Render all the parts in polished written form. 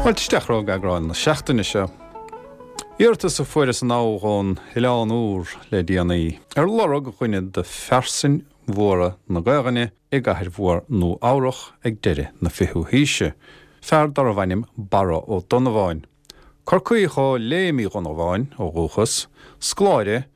Fáilte isteach romhaibh go eagrán na seachtaine seo. Iarratas a fuaireas anall ón Oileán Úr le déanaí ar lorg dhuine de phearsain mhóra na Gaelainne i gcathair mhór Nua Eabhrach ag deireadh na fichiú haoise, fear darbh ainm Barra Ó Donnabháin. Corcaíoch ó Léim Uí Dhonnabháin ó dhúchas, scoláire,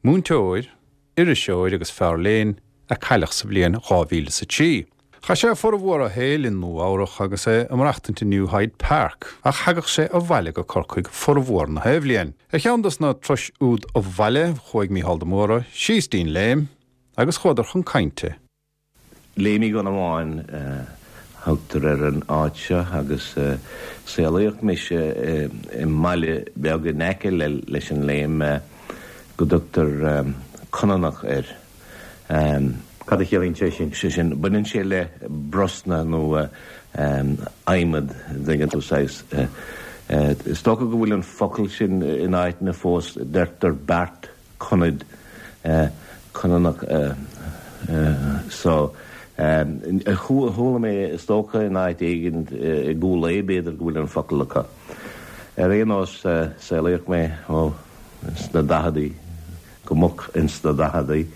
múinteoir, iriseoir agus fear léinn, a cailleadh sa bhliain 2003. Chaith sé formhór a shaoil i Nua Eabhrach agus é ag maireachtaint i New Hyde Park, ach thagadh sé abhaile go Corcaigh formhór na bhliain. Ar cheann dos na turais úd abhaile, chuaigh Mícheál de Mórdha síos dtí'n Léim agus chuadar chun cainte. Léim Uí Dhonnabháin a thugtar ar an áit seo agus saolaíodh mise i mbaile beag in aice leis an Léim go dtugtar Conanach air. Cad a chiallaíonn sé sin? Sé sin, baineann sé le brosna nó adhmad, an dtuigeann tú, saghas. Is dócha go bhfuil an focal sin in áiteanna fós, deirtear beart. Conad, Conanach so. Chuala mé, is dócha, in áit éigin i gCúil Aodha, b'fhéidir, go bhfuil an focal acu. Ar aon nós, saolaíodh mé, ó, ins na daicheadaí, go moch ins na daicheadaí,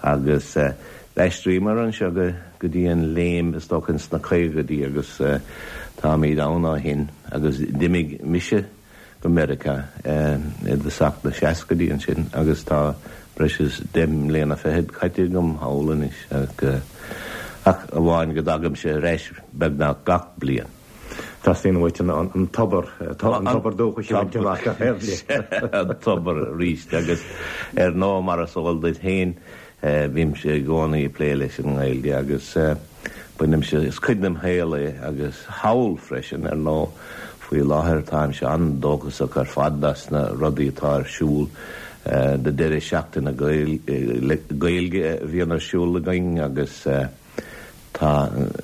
agus d'aistríomar anseo go dtí an Léim, is dócha, ins na caogaidí agus táimid ann ó shin agus d'imigh mise, go Meiriceá i dtosach na seascaidí ansin agus tá breis is deich mbliana fichead caite agam thall anois ach amháin go dtagaimse ar ais beagnach gach bliain. Teastaíonn uait an tobar, an tobar dúchais a bhaint amach gach aon bhliain. An tobar arís agus ar ndóigh mar is eol duit féin Bímse i gcónaí ag plé leis an nGaeilge agus bainimse, is cuid dem shaol é agus thall freisin, ar ndóigh. Faoi láthair táimse an-dóchasach ar fad as na rudaí atá ar siúl, na deireadh seachtaine Gaeilge a bhíonn ar siúl againn agus tá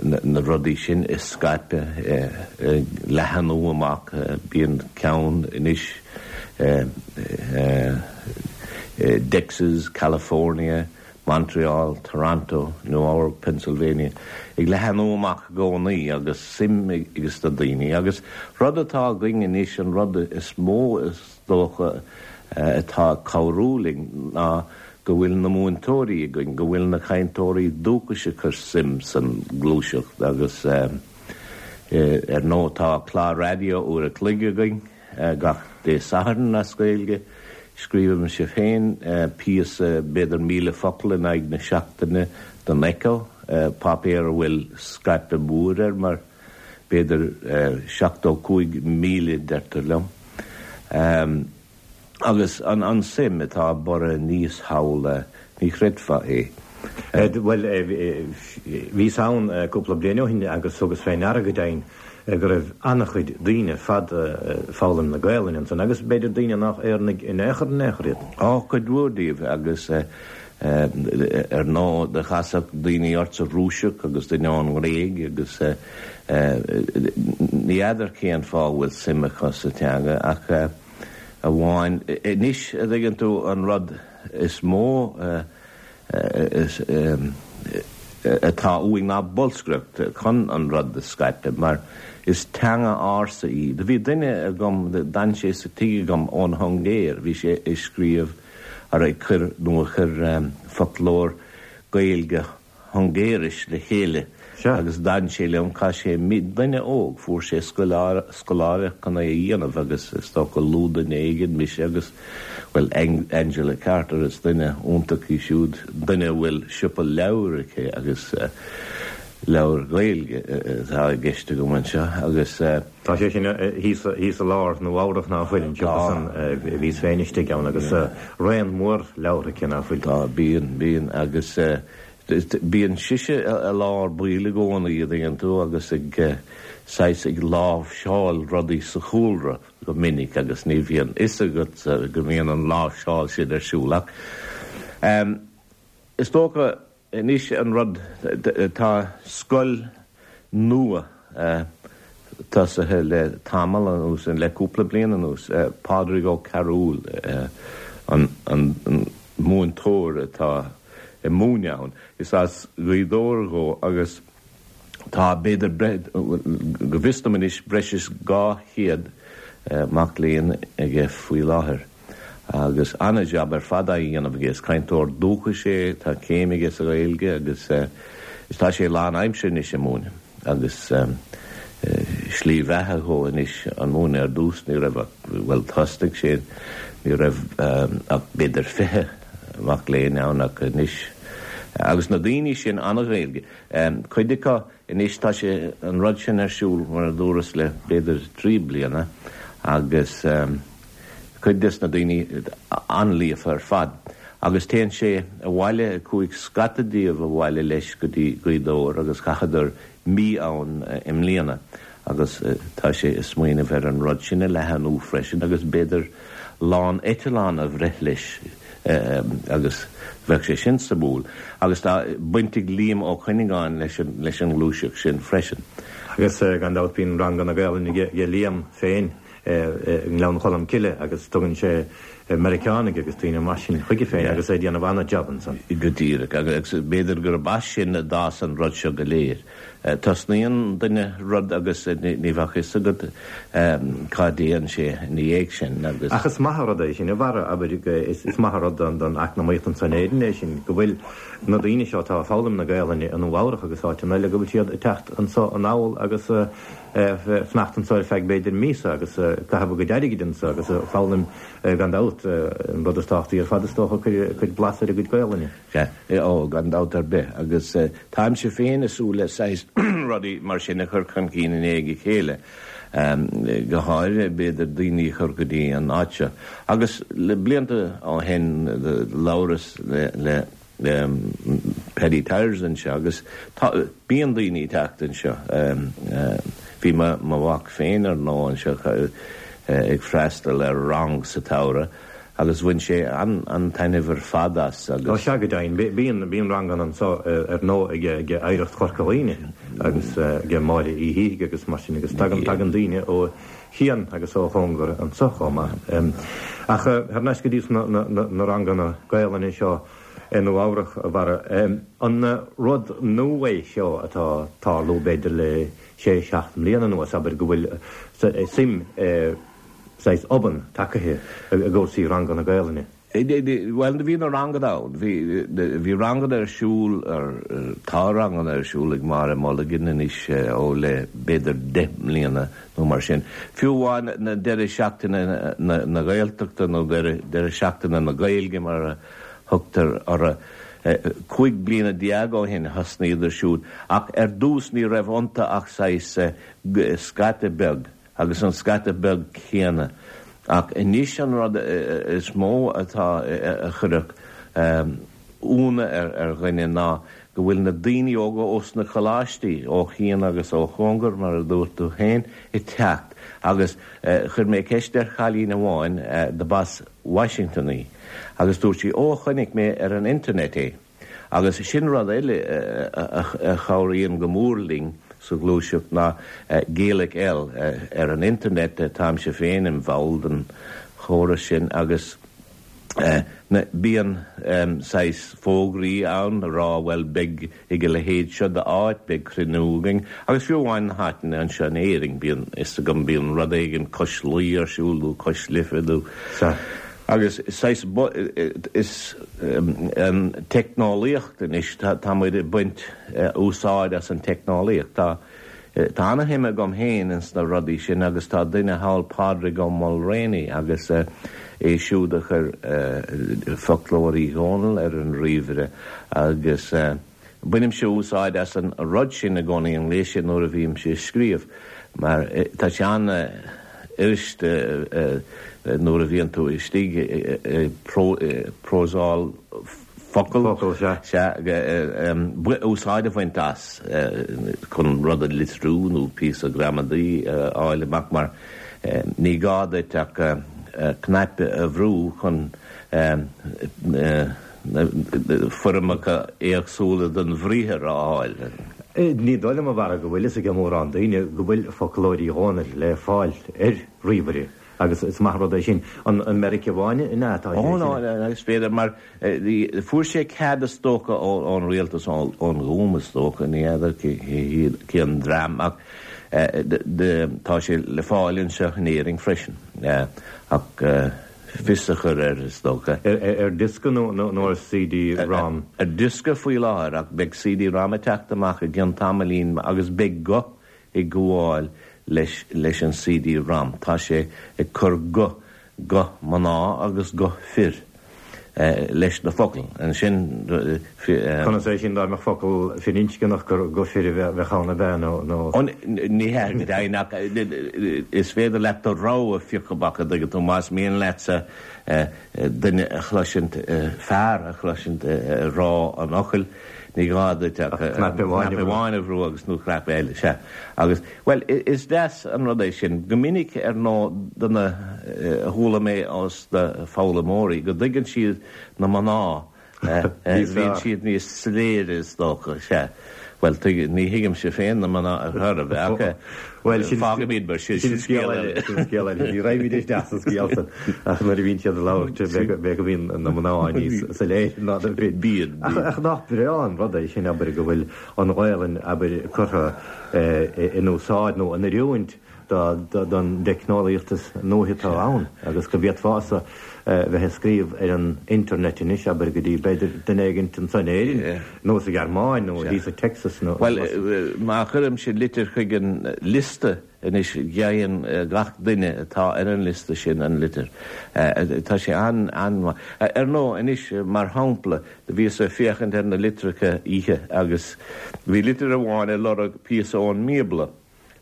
na rudaí sin ag scaipeadh, ag leathanú amach. Bíonn ceann anois i dTexas, California, Montreal, Toronto, Nua Eabhrac, Pennsylvania, ag leathanú amach i gcónaí agus suim ages na daoine. Agus rud atá againn anois, an rud is mó is dócha atá ag cabhrú linn ná go bhfuil na múinteoirí againn, go bhfuil na cainteoirí dúchais ag cur suim san gluaiseacht agus ar ndóigh tá clár raidió uair a chloig againn gach Dé Sathairn as Gaeilge. Scríobhaimse féin píosa b'fhéidir 1,000 focal in aghaidh na seachtaine don Echo, páipéar a bhfuil scaipeadh mór air mar b'fhéidir 75,000 deirtear liom. Agus an suim atá ag borradh aníos thall, ní chreidfeá é. Bhuel, bhíos ann cúpla bliain ó shin agus thugas fé ndeara go deimhin go raibh an-chuid daoine ar fad ag foghlaim na Gaelainne ansan agus b'fhéidir daoine nách Éireannaigh in aon chor in aon chor iad. Á, cuid mhór díobh agus ar ndóigh do chasfadh daoine ortsa Rúiseach agus duine ón nGréig agus ní fheadar cén fáth a bhfuil suim acu sa teanga ach amháin. Anois, a dtuigeann tú, an rud is mó atá uainn ná bolscaireacht chun an rud a scaipeadh, mar is teanga ársa í. Do bhí duine agam, d'fhan sé sa tigh agam ón Hungéir, bhí sé ag scríobh, ar ag cur, nó a chuir foclóir Gaeilge Hungéiris le chéile agus d'fhan sé liom, chaith sé mí, duine óg, fuair sé scoláireacht chun é a dhéanamh agus is dócha luadh duine éigin, mise agus, bhuel, Angela Carter, is duine iontach í siúd, duine a bhfuil siopa leabhar aici agus leabhair Ghaeilge atá i gceist agam anseo agus. Tá sé sin thíos i lár Nua Eabhrach ná fuil, an siopa san, bhíos féin istigh ann agus raon mór leabhar aici ná fuil. Tá, bíonn, bíonn agus bíonn sise i lár baill i gcónaí, a dtuigeann tú, agus ag saghas ag láimhseáil rudaí sa chúlra go minic agus ní bhíonn fhios agat go mbíonn an láimhseáil sin ar siúl ach is dócha Anois an rud, tá scoil nua tosaithe le tamall anuas, le cúpla bliain anuas, Pádraig Ó Cearúil an múinteoir atá ag múineadh ann. Is as Gaoth Dobhair dhó agus. Tá, b'fhéidir, go bhfios dom anois, breis is 200 mac léinn aige faoi láthair agus an-jab ar fad á dhéanamh aige. Is cainteoir dúchais é, tá céim aige sa Ghaeilge agus tá sé lán-aimsire anois ag múineadh agus slí bheatha dhó anois an múineadh. Ar dtús ní raibh ach, bhuel thosnaigh sé, ní raibh ach b'fhéidir 20 mac léinn ann ach anois agus na daoine sin an-Ghaeilge. Cuid acu anois, tá sé, an rud sin ar siúl, mar a dúras, le b'fhéidir 3 bliana agus cuid des na daoine an-líofa ar fad. Agus téann sé abhaile, chuaigh scata díobh abhaile leis go dtí Gaoth Dobhair agus chaitheadar mí ann i mbliana agus tá sé ag smaoineamh ar an rud sin a leathanú freisin agus b'fhéidir lán eitleán a bhreith leis agus bheadh sé sin suimiúil. Agus tá baint ag Liam Ó Cuinneagáin leis an leis an ngluaiseacht sin freisin. Agus gan dabht bíonn ranganna Gaelainne aige Liam féin i nGleann Cholm Cille agus tugann sé Meiriceánaigh agus daoine mar sin chuige féin agus é ag déanamh an-jab ansan. Go díreach. Agus b'fhéidir gurb as sin a d'fhás an rud seo go léir. Tosnaíonn duine rud agus ní bheadh a fhios agat cá dtéann sé ina dhiaidh sin agus. Ach is maith an rud é sin, a Bharra, abair, is maith an rud don eacnamaíocht anso in Éirinn é sin, go bhfuil na daoine seo atá ag foghlaim na Gaelainne i Nua Eabhrach agus áiteanna eile, go bhfuil siad ag teacht anso anall agus ag fanacht anso ar feadh b'fhéidir míosa agus ag caitheamh a gcuid airgid anso agus ag foghlaim gan dabht, an rud is tábhachtaí ar fad is dócha, ag cur blas ar a gcuid Gaelainne. Sea, ó, gan dabht ar bith. Agus táimse féin ag súil le saghas rudaí mar sin a chur chun cinn i ndiaidh a chéile, go háirithe, b'fhéidir, daoine a chur go dtí an áit seo. Agus le blianta ó shin, labhras le Paddy Tyers anseo agus tá, bíonn daoine ag teacht anseo. Bhí mo mhac féin, ar ndóigh, anseo ag freastal ar rang sa tsamhradh. Agus bhain sé an-taitneamh ar fad as agus. Ó sea, go deimhin. Bíonn, bíonn ranganna anso ar ndóigh ag, ag Oidhreacht Chorca Dhuibhne agus ag Máire Uí Shíthigh agus mar sin agus tagann, tagann daoine ó chian agus ó chóngar anso chomh maith. Ach thar n-ais go dtí na, na, na ranganna Gaelainne seo i Nua Eabhrach, a Bharra, an rud nua é seo atá ag tarlú b'fhéidir le sé, seacht mbliana anuas, abair, go bhfuil suim i, saghas obann tagaithe i gcúrsaí ranganna Gaelainne. Bhuel, bhí na ranganna ann. Bhí, bhí ranganna ar siúl, tá ranganna ar siúl ag Máire Mulligan anois ó le b'fhéidir 10 mbliana nó mar sin. Fiú amháin na deireadh seachtaine na Gaeltachta nó deireadh seachtaine na Gaeilge mar a thugtar orthu, 15 bliana ó shin thosnaíodar siúd ach ar dtús ní raibh iontu ach saghas scata beag. agus an scata beag céanna. Ach anois an rud is mó atá a chuirfeadh ionadh ar dhuine ná go bhfuil na daoine óga ós na coláistí, ó chian agus ó chóngar, mar a dúirt tú féin, ag teacht. Agus chuir mé ceist ar chailín amháin dob as Washington í agus dúirt sí, Ó, chonaic mé ar an internet é. Agus sin rud eile a chabhraíonn go mór linn sa ghluaiseacht ná Gaelic-L ar an internet, táimse féin im bhall den chóras sin agus bíonn saghas fógraí ann a rá bhuel beidh ag a leithéid seo d'áit, beidh cruinniú againn agus fiú amháin na háiteanna anseo in Éirinn bíonn fhios agam bíonn rud éigin cois Laoi ar siúl nó cois Life nó Agus saghas, is an teicneolaíocht anois, tá muid ag baint úsáid as an teicneolaíocht. Tá, tá ana-shuim agam féin ins na rudaí sin agus tá duine thall, Pádraig Ó Maolramhnaigh, agus é siúd a chuir Foclóir Uí Dhónaill ar an ríomhaire agus, Bainimse úsáid as an rud sin i gcónaí, an gléas sin, nuair a bhímse ag scríobh, mar tá sé an-fhuirist nuair a bhíonn tú istigh ag próiseáil focal, sea, úsáid a bhaint as chun rud a litriú nó píosa gramadaí a fháil amach, mar ní gá duit ach cnaipe a bhrú chun foirmeacha éagsúla den bhriathar a fháil. Ní dóigh liom, a Bharra, go bhfuil fhios ag mórán daoine go bhfuil Foclóir Uí Dhónaill le fáil ar ríomhaire. Agus is maith an rud é sin. An i Meiriceá amháin an ea atá sé sin? Ó no, is féidir mar fuair sé cead is dócha ón rialtas, ón Ghúm is dócha, ní fheadar cén dream ach tá sé le fáil anseo in Éirinn freisin ach fios a chur air is dócha. Ar diosca nó ar CD rom? Ar diosca faoi láthair ach beidh CD rom ag teacht amach i gcionn tamaillín agus beidh guth ag gabháil leis leis an CD rom. Tá sé ag cur guth, guth mná agus guth fir, leis na focail. Ansin. Conas é sin dá mbeadh focal firinscneach gur guth fir a bheadh ann ab ea nó? Ó ní hea go deimhin ach is féidir leat do rogha a phiocadh amach an dtuigeann tú más mian leatsa duine a chloisint, fear a chloisint ag rá an fhocail. Ní gá duit ach cnaipe amháin a bhrú agus nó cnaipe eile, sea. Agus, bhuel, is deas an rud é sin. Go minic, ar ndóigh, do na, chuala mé ós na foghlaimeoirí go dtuigeann siad na mná, bíonn siad níos soiléire is dócha, sea. Bhuel, tuig, ní thuigimse féin na mná ar chor ar bith, ach Bhuel, sin, fágfaimid mar sin, sin scéal eile, sin scéal eile. Ní raghaimid isteach sa scéal san, ach nuair a bhíonn siad ag labhairt, b'fhéidir go mbíonn na mná níos soiléire ná na fir. Bíonn, bíonn. Ach nach breá an rud é sin, abair, go bhfuil an Ghaelainn, abair, curtha in úsáid nó in oiriúint don dteicneolaíocht is nuaithe atá ann agus go bhféadfása bheith ag scríobh ar an internet anois, abair, go dtí, b'fhéidir, duine éigint anso in Éirinn nó sa Ghearmáin nó thíos i Texas nó. Bhuel, má chuirimse litir chuig an liosta anois, gheibheann gach duine atá ar an liosta sin an litir. Tá sé an-mhaith. Ar ndóigh, anois, mar shampla, do bhíos ag féachaint ar na litreacha oíche agus bhí litir amháin ag lorg píosa ón mBíobla.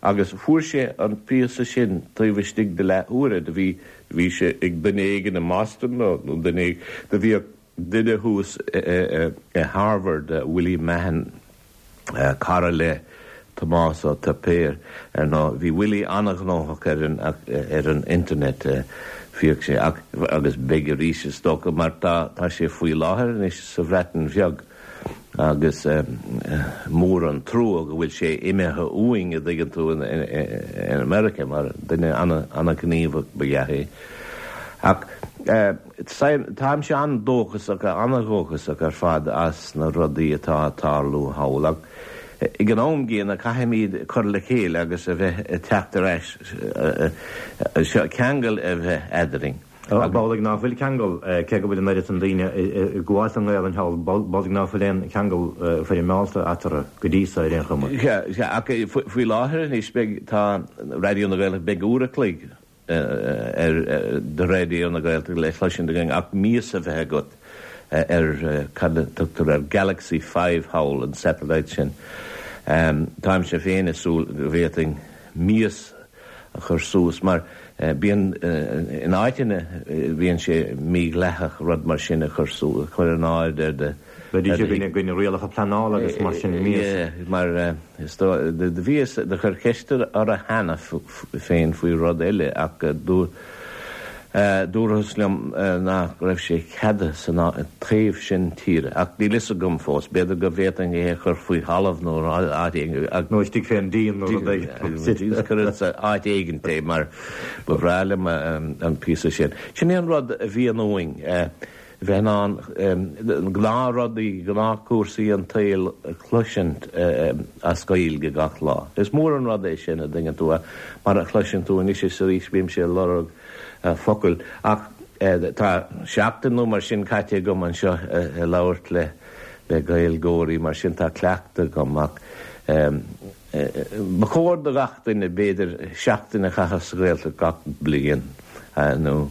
Agus fuair sé an píosa sin taobh istigh de leath uaire. Do bhí, do bhí sé ag duine éigin i mBoston nó, nó duine éigin, do bhíodh duine thuas i Harvard, Willie Mahon, cara le Tomás Ó Tuipéir, ar ndóigh. Bhí Willie an-ghnóthach ar an, ar an internet, bhíodh sé, ach, agus beidh arís is dócha, mar tá, tá sé faoi láthair anois sa Bhreatain Bheag. Agus mór an trua go bhfuil sé imithe uainn, a dtuigeann tú, in America, mar duine an-ghníomhach ba ea é. Ach táimse an-dóchasach, an-dhóchasach ar fad as na rudaí atá ag tarlú thall. Ach ag an am gcéanna caithfimid cur le chéile agus a bheith ag teacht ar ais, ceangal a bheith eadrainn. B'amhlaidh ná fuil ceangal, cé go bhfuil an oiread san daoine ag gabháil don nGaelainn thall, b'amhlaidh ná fuil aon cheangal foirmeálta eatarthu go dtí so ar aon chuma. Sea, sea, ach faoi láthair anois beidh, tá Raidió na Gaeltachta, beidh uair a chloig ar de Raidió na Gaeltachta le cloisint againn ach mias a bheith agat ar cad a tugtar ar Galaxy 5 thall, an satellite sin. Táimse féin ag súil go bhféadfainn mias a chur suas mar bíonn in áiteanna bíonn sé mídhleathach rud mar sin a chur suas, chur in airde ar do. Bheidís i gcoinne rialacha pleanála agus mar sin mias. Yeah, mar is dóigh, do bhíos, do chuir ceist orthu cheana féin faoi rud eile ach dúirt, Dúrathas liom nach raibh sé ceadaithe san taobh sin tíre, ach níl fhios agam fós. B'fhéidir go bhféadfainn é a chur faoi thalamh nó áit éigin. Nó istigh fén díon nó rud éigin. Cuir sa áit éigin é mar ba bhreá liom an píosa sin. Sin é an rud a bhíonn uainn. bheith in ann gnáthrudaí, gnáthchúrsaí an tsaoil a chloisint as Gaeilge gach lá. Is mór an rud é sin, a dtuigeann tú, mar a chloiseann tú anois is arís bímse ag lorg focail. Ach tá seachtain nó mar sin caite agam anseo ag labhairt le Gaeilgeoirí, mar sin tá cleachtadh agam. Ach ba chóir do gach duine, b'fhéidir, seachtain a chaitheamh sa Ghaeltacht gach bliain nó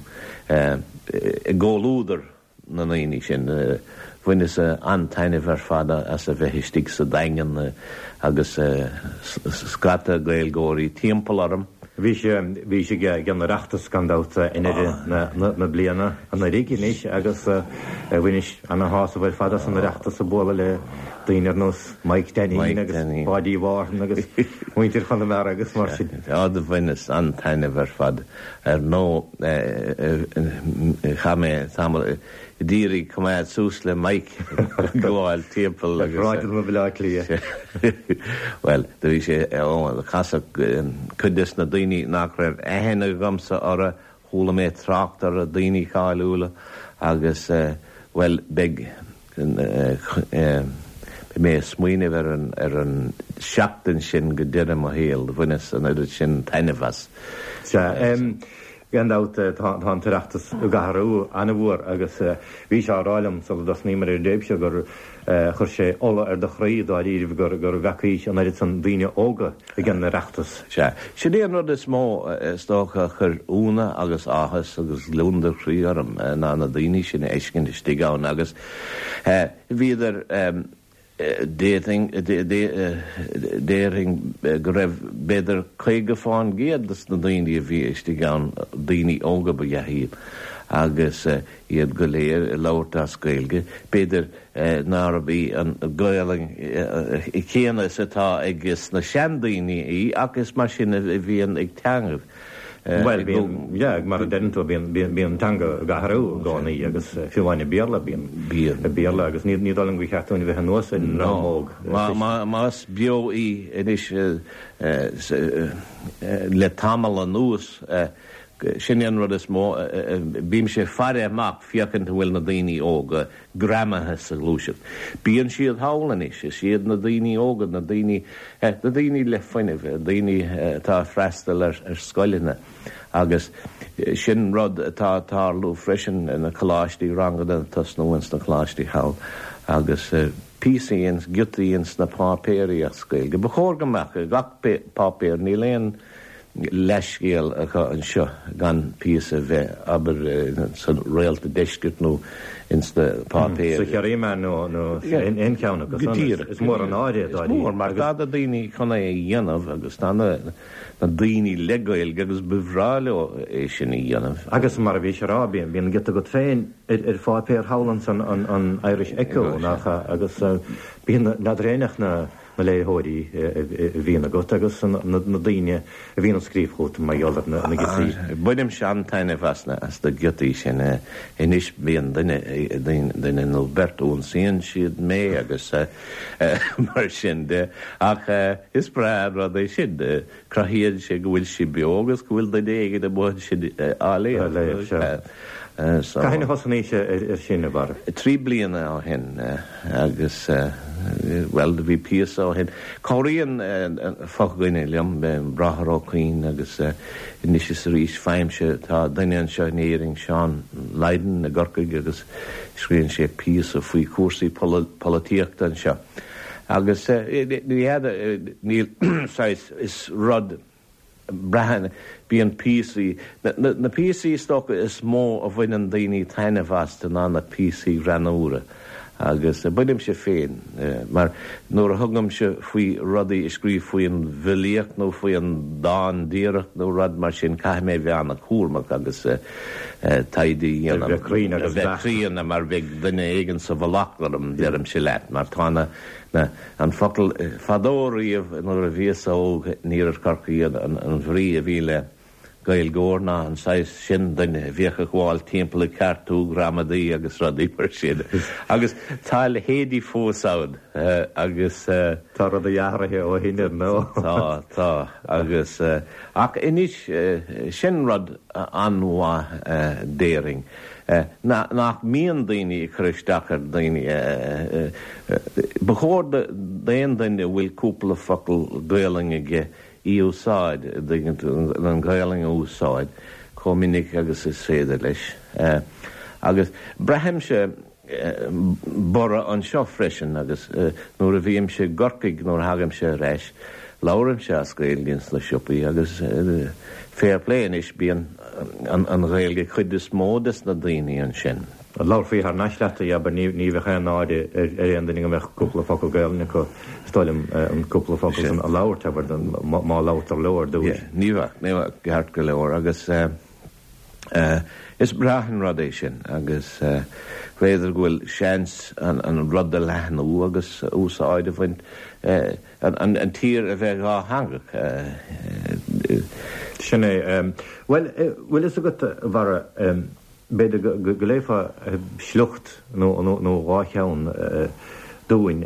i gcomhluadar na ndaoine sin. Bhaineas an-taitneamh ar fad as a bheith istigh sa Daingean agus scata Gaeilgeoirí timpeall orm. Bhís, bhís ag an Oireachtas gan dabht i ndeireadh na bliana anuraidh anois agus bhainis ana-shásamh ar fad as an Oireachtas ag bualadh le daoine ar nós Mike Dainín agus Páidí Mhárthain agus muintir Chonamara agus mar sin. Á do bhaineas an-taitneamh ar fad. Ar ndóigh chaith mé tamall d'iarraidh coimeád suas le Mike ag gabháil timpeall agus. Ar shráideanna Bhaile Átha Cliath. Bhuel, do bhí sé, ó, casadh cuid des na daoine nach raibh aithne agamsa orthu. Chuala mé trácht ar daoine cáiliúla agus, bhuel, beidh, beidh mé ag smaoineamh ar an, ar an seachtain sin go deireadh mo shaoil. Bhaineas an oiread sin taitneamh as. Sea, gan dabht tá an tOireachtas ag athrú an-mhór agus bhís á rá liom sula dtosnaíomar ar an dtéip seo gur chuir sé ola ar do chroí dáiríribh gur bhfeacaís an oiread san daoine óga ag an Oireachtas. Sea, sin é an rud is mó, is dócha, a chuir ionadh agus áthas agus gliondar croí orm, ná na daoine sin a fheiscint istigh ann agus bhíodar, déarfainn, déarfainn go raibh b'fhéidir 50 fán gcéad de na daoine a bhí istigh ann, daoine óga ba ea iad agus iad go léir ag labhairt as Gaeilge, b'fhéidir nárab í an Ghaelainn chéanna is atá ag na seandaoine í ach is mar sin a bhíonn ag teangaibh. Bhuel, bíonn, yeah, mar a deireann tú, bíonn, bíonn, bíonn an teanga ag athrú i gcónaí agus fiú amháin i Béarla, bíonn, Bíonn. i Béarla agus ní, ní dóigh liom gur cheart dúinn a bheith anuas ar an dream óg. Má, má, más beo í anois le tamall anuas, sin é an rud is mó, bímse ag faire amach féachaint an bhfuil na daoine óga greamaithe sa ghluaiseacht. Bíonn siad thall anois, is iad na daoine óga, na daoine, na daoine le fuinneamh, daoine atá ag freastal ar scoileanna agus sin rud atá ag tarlú freisin na coláistí, ranganna ag tosnú ins na coláistí thall agus píosaí ins, giotaí ins na páipéirí as Gaeilge. Ba chóir go mbeadh i gach páipéar, níl aon leathscéal acu anseo gan píosa a bheith, abair, sa Réalta Deiscirt nó ins na páipéir. Sa Chiarraí Meán nó aon cheann acu san. Is mór an náire é, dáiríre. Is mór, mar tá na daoine chun é a dhéanamh agus tá na daoine le Gaeilge agus ba bhreá leo é sin a dhéanamh. Agus mar a bhís a rá, bíonn giota agat féin ar pháipéar thall ansan, an Irish Echo, nach ea, agus bíonn, n'fheadar éinne ach na. na léitheoirí a bhíonn agat agus na daoine a bhíonn ag scríobh chugat mar gheall ar na giotaí. Bainimse an-taitneamh as na giotaí sin. Anois bíonn duine, duine nó beirt, ionsaíonn siad mé agus mar sin de ach is breá an rud é sin. Cruthaíonn sé go bhfuil sí beo agus go bhfuil duine éigin amuigh ansin á léamh. Á léamh, sea. Cathain a thosnaís ar sin, a Bharra? 3 bliana ó shin agus, bhuel, bhí píosa ó shin. Cabhraíonn fo-dhuine liom, Bráthair Ó Cuinn agus anois is arís faighimse, tá duine anseo in Éirinn, Seán Lydon i gCorcaigh agus scríobhann sé píosa faoi chúrsaí polaitíochta anseo. Agus ní fheadar, níl, saghas, is rud, braitheann, bíonn píosaí, na píosaí is dócha is mó a bhaineann daoine taitneamh astu ná na píosaí greannúra. Agus bainimse féin, mar nuair a thugaimse faoi rudaí a scríobh faoin bhfilíocht nó faoi an dán díreach nó rud mar sin, caithfidh mé a bheith an-chúramach agus taighde a dhéanamh. A bheith cruinn agus beacht. A bheith críonna mar bheidh duine éigin sa mhullach orm, deirimse leat, mar tá na, na, an focal, fadó riamh nuair a bhíos óg in iarthar Chorcaí an, an bhrí a bhí le Gaeilgeoir ná an saghas sin duine a bhíodh ag gabháil timpeall ag ceartú gramadaí agus rudaí mar sin. Agus tá a leithéidí fós ann agus. Tá rudaí athraithe ó shin ar ndóigh. Tá, tá. Agus, ach anois, sin rud an-mhaith déarfainn, nach mbíonn daoine ag cur isteach ar dhaoine. Ba chóir d'aon duine a bhfuil cúpla focal Gaolainn aige í a úsáid, an Ghaolainn a úsáid chomh minic agus is féidir leis. Agus braithimse borradh anseo freisin agus nuair a bhímse i gCorcaigh, nuair a thagaimse ar ais, labhraímse as Gaeilge ins na siopaí agus fair play anois, bíonn an Ghaeilge ag cuid is mó des na daoine ansin. Labharfaí thar n-ais leat í, abair, ní bheadh aon náire ar aon duine go mbeadh cúpla focal Gaelainne acu, is dóigh liom, an cúpla focal san a labhairt, abair, má labhartar leo ar dtús. Yeah, ní bheadh, ní bheadh, ceart go leor agus is breá an rud é sin agus b'fhéidir go bhfuil seans an rud a leathnú agus úsáid a bhaint, an tír a bheith dhátheangach. Sin é. Bhuel, bhfuil fhios agat, a Bharra, b'fhéidir go léifeá sliocht nó dhá cheann dúinn,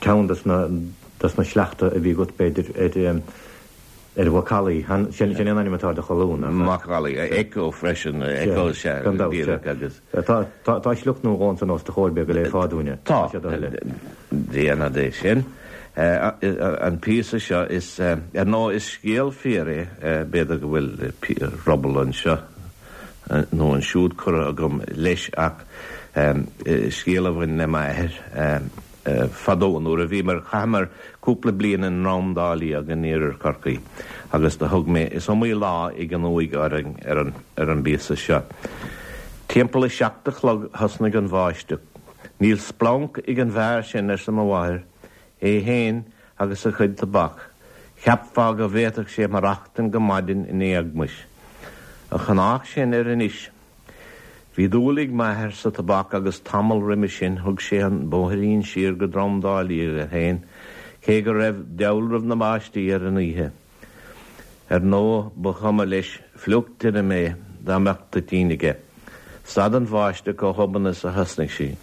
ceann des na sleachta a bhí agat, b'fhéidir, ar. Ar Mhacallaí, sin é an ainm atá ar do cholún, nach ea? Macallaí, Echo freisin, Echo sea, Gan dabht, sea. Agus. Tá sliocht nó dhó ansan os do chomhair, b'fhéidir go léifeá dúinn é. Tá, déanfad é sin. An píosa seo, is, ar ndóigh, is scéal fíor é, b'fhéidir go bhfuil ruball anseo nó ansiúd curtha agam leis ach scéal a bhain le m'athair. Fadó nuair a bhíomar, chaitheamar cúpla bliain i nDrom Dá Liag in iarthar Chorcaí agus do thug mé, is iomaí lá ag an uaigh orainn ar an, ar an bpíosa seo. Timpeall a seacht a chlog thosnaigh an bháisteach. Níl splanc ag an bhfear sin, arsa mo mháthair, é fhéin agus a chuid tobac, cheapfá go bhféadfadh sé maireachtain go maidin in éagmais. A chonách sin air anois. Bhí dúil ag m'athair sa tobac agus tamall roimhe sin thug sé an bóithrín siar go Drom Dá Liag é féin, cé go raibh dealramh na báistí ar an oíche. Ar ndóigh ba chuma leis fliuch tirim é dá mbeadh toitín aige. Stad an bháisteach chomh hobann is a thosnaigh sí.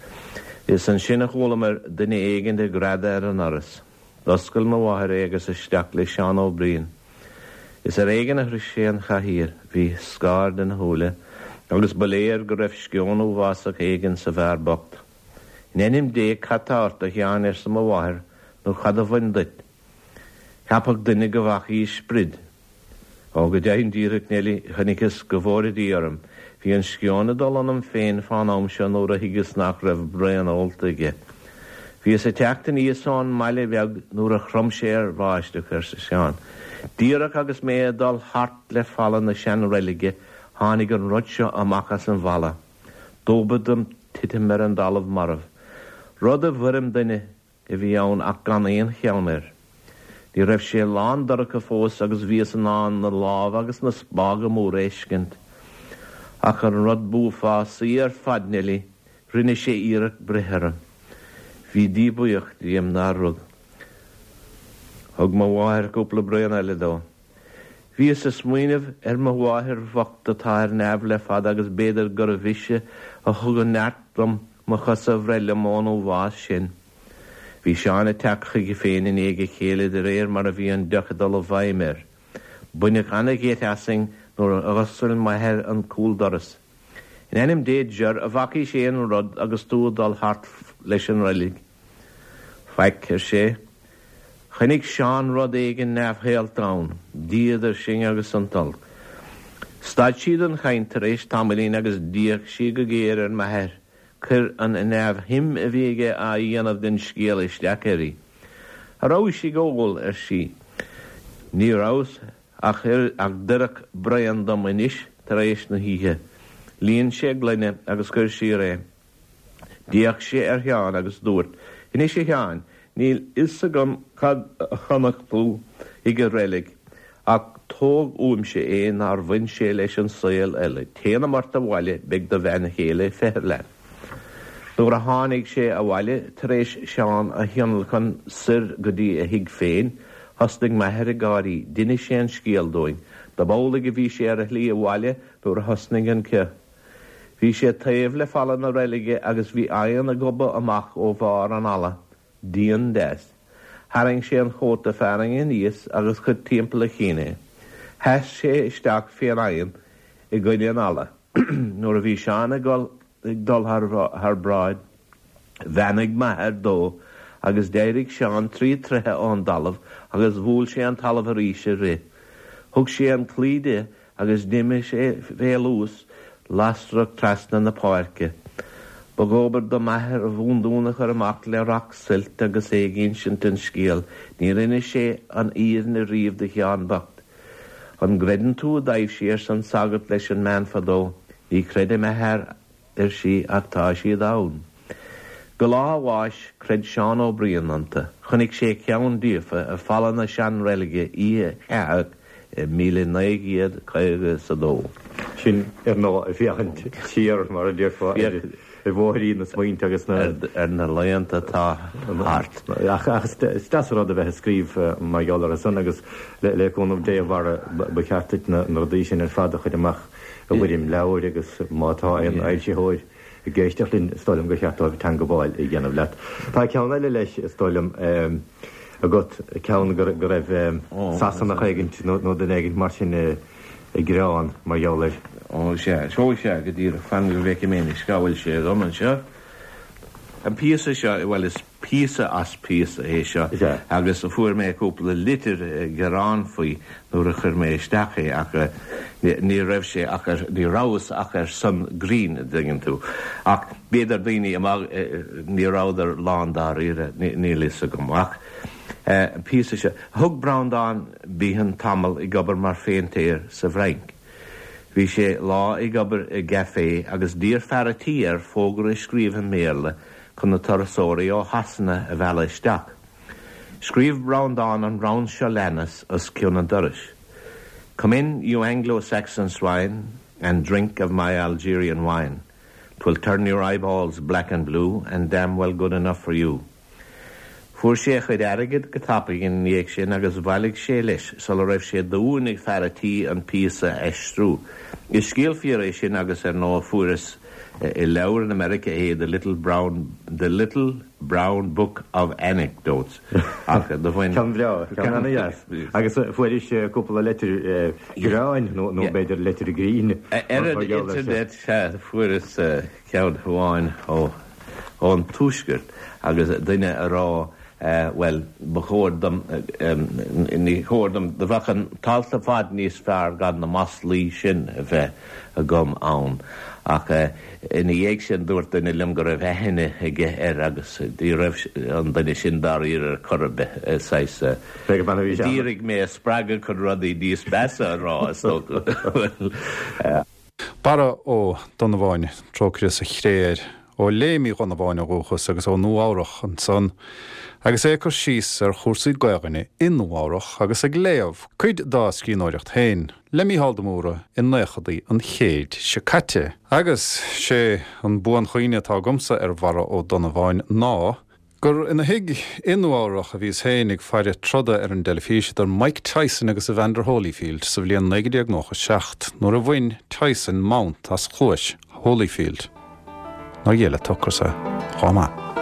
Is ansin a chualamar duine éigin ag greadadh ar an ndoras. D'oscail mo mháthair é agus isteach le Seán Ó Briain. Is ar éigean a shroich sé an chathaoir, bhí scaird ina shúile agus ba léir go raibh sceon uafásach éigin sa bhfear bocht. In ainm Dé cad tá ort, a Sheáin, arsa mo mháthair, nó cad a bhain duit? Cheapfadh duine go bhfacaís sprid. Ó, go deimhin díreach, Neilí, chonaiceas, go bhfóire Dia orm. Bhí an sceon ag dul ionam féin fán am seo nuair a thuigeas nach raibh braon ólta aige. Bhíos ag teacht aníos ón mbaile bheag nuair a chrom sé ar bháisteach, arsa Seán. Díreach agus mé ag dul thart le falla na seanreilige tháinig an rud seo amach as an bhfalla. Dóbair dom titim ar an dtalamh marbh. Rud i bhfoirm duine. a bhí ann ach gan aon cheann air. Ní raibh sé lán dorcha fós agus bhíos in ann na lámha agus na spága móra a fheiscint. Ach an rud b'uafásaí ar fad, Neilí, rinne sé iarracht breith orm. Bhí Dia buíoch díom nár rug. Thug mo mháthair cúpla braon eile dó. Bhíos ag smaoineamh ar mo mháthair bhocht atá ar neamh le fada agus b'fhéidir gurbh ise a thug an neart dom mo chosa a bhreith liom ón uafás sin. Bhí Seán ag teacht chuige féin i ndiaidh a chéile de réir mar a bhí an deoch ag dul i bhfeidhm air. Baineadh an-gheit asainn nuair a dh'oscail m'athair an cúldoras. In ainm Dé Jer, an bhfacaís aon rud agus tú ag dul thart leis an reilig? Faic, ar sé. Chonaic Seán rud éigin neamhshaolta ann, Dia idir sinn agus an t-olc. Stad sí den chaint tar éis tamaillín agus d'fhéach sí go géar ar m'athair. Chuir an neamhshuim a bhí aige á dhéanamh den scéal isteach uirthi. A rabhais ag ól? ar sí. Ní rabhas ach ach d'oirfeadh braon dom anois tar éis na hoíche. Líon sé gloine agus chuir siar é. D'fhéach sé ar Sheán agus dúirt, Anois a Sheáin, níl fhios agam cad a chonaic tú ag an reilig, ach tóg uaimse é nár bhain sé leis an saol eile. Téanam ort abhaile, beidh do bhean chéile ag feitheamh leat. Nuair a tháinig sé abhaile, tar éis Seán a thionlacan soir go dtí a thigh féin, thosnaigh m'athair ag gáirí. D'inis sé an scéal dúinn. Dob amhlaidh a bhí sé ar a shlí abhaile nuair a thosnaigh an ceo. Bhí sé taobh le falla na reilige agus bhí oigheann ag gobadh amach ó bharr an fhalla, dian deas. Tharraing sé an chóta fearthainne aníos agus chuir timpeall a chinn é. Sheas sé isteach fén oigheann i gcoinne an fhalla. Nuair a bhí Seán ag dul thar bráid, Bheannaigh m'athair dó agus d'éirigh Seán tri troithe ón dtalamh agus bhuail sé an talamh arís ag rith. Thug sé an claí de agus d'imigh sé fé luas lasrach trasna na páirce. Ba dhóbair do m'athair a bhúndún a chur amach le racht suilt agus é ag insint an scéil. Níor inis sé an fhírinne riamh do Sheán bocht. An gcreideann tú i dtaibhsí arsa an sagart leis an mbean fadó. Ní chreidim a fhear ar sí, ach tá siad ann. Go lá a bháis, chreid Seán Ó Briain iontu. Chonaic sé ceann díofa ar falla na seanreilige oíche cheathach i 1952. Sin, ar ndóigh, ag féachaint siar, mar a déarfá, ar bhóithrín na smaointe agus na. ar na laethanta atá thart. Ach is deas an rud a bheith ag scríobh mar gheall orthu san agus le cúnamh Dé, a Bharra, ba cheart duit na rudaí sin ar fad a chur amach i bhfoirm leabhair agus má tá aon fhoilsitheoir ag éisteacht linn, is dóigh liom gur cheart dóibh teangabháil a dhéanamh leat. Tá ceann eile leis, is dóigh liom. agat, ceann go raibh Sasanach éigint nó duine éigint mar sin ag gearán mar gheall air. Ó sea, ó sea, go díreach, fan go bhfeicfidh mé anois cá bhfuil sé agam anseo. An píosa seo, bhuel is píosa as píosa é seo agus fuair mé cúpla litir gearán faoi nuair a chuir mé isteach é ach ní raibh sé ach ar, ní rabhas ach ar son grinn, a dtuigeann tú. Ach b'fhéidir daoine amach, ní rabhadar lán dáiríre, níl fhios agam. Ach an píosa seo, thug Breandán Behan tamall ag obair mar phéintéir sa bhFrainc. Bhí sé lá ag obair i gcafé agus d'iarr fear a' tí air fógra a scríobh i mBéarla chun na turasóirí ó Shasana a mhealladh isteach. Scríobh Breandán an rann seo leanas os cionn an dorais, Come in, you Anglo-Saxon swine, and drink of my Algerian wine. 'Twill turn your eyeballs black and blue and damn well good enough for you. Fuair sé a chuid airgid go tapaidh ina dhiaidh sin agus bhailigh sé leis sula raibh sé d'uain ag fear a' tí an píosa a aistriú. Is scéal fíor é sin agus ar ndóigh fuaireas i leabhar in America é The Little Brown The Little Brown Book of Anecdotes ach do bhain Ceann breá, ceann ana-dheas. Agus fuairis cúpla leitir gearáin nó b'fhéidir leitir grinn Ar an internet sea fuaireas ceann amháin ó ón Tuaisceart agus duine a rá bhuel ba chóir dom ní chóir dom do bheadh an t-alt ar fad níos fearr gan na maslaí sin a bheith agam ann ach ina dhiaidh sin dúirt duine liom go raibh aithne aige air agus ní raibh an duine sin dáiríre ar chor ar bith saghas d'iarraidh mé a spreagadh chun rudaí níos measa a rá is dócha. Barra Ó Donnabháin, trócaire sa chré air, ó Léim Uí Dhonnabháin ó dhúchas agus ó Nua Eabhrach ansan, agus é ag cur síos ar chúrsaí Gaelainne i Nua Eabhrach agus ag léamh cuid dá scríbhneoireacht féin le Mícheál de Mórdha i naochadaí an chéid seo caite. Agus sé an buanchuimhne atá agamsa ar Bharra Ó Donnabháin ná gur ina thigh i Nua Eabhrach a bhíos féin ag faire troda ar an dteilifís idir Mike Tyson agus Evander Holyfield sa bhliain 1997 nuair a bhain Tyson mount as cluais Holyfield. Nár ghéill an t-ocras é chomh maith.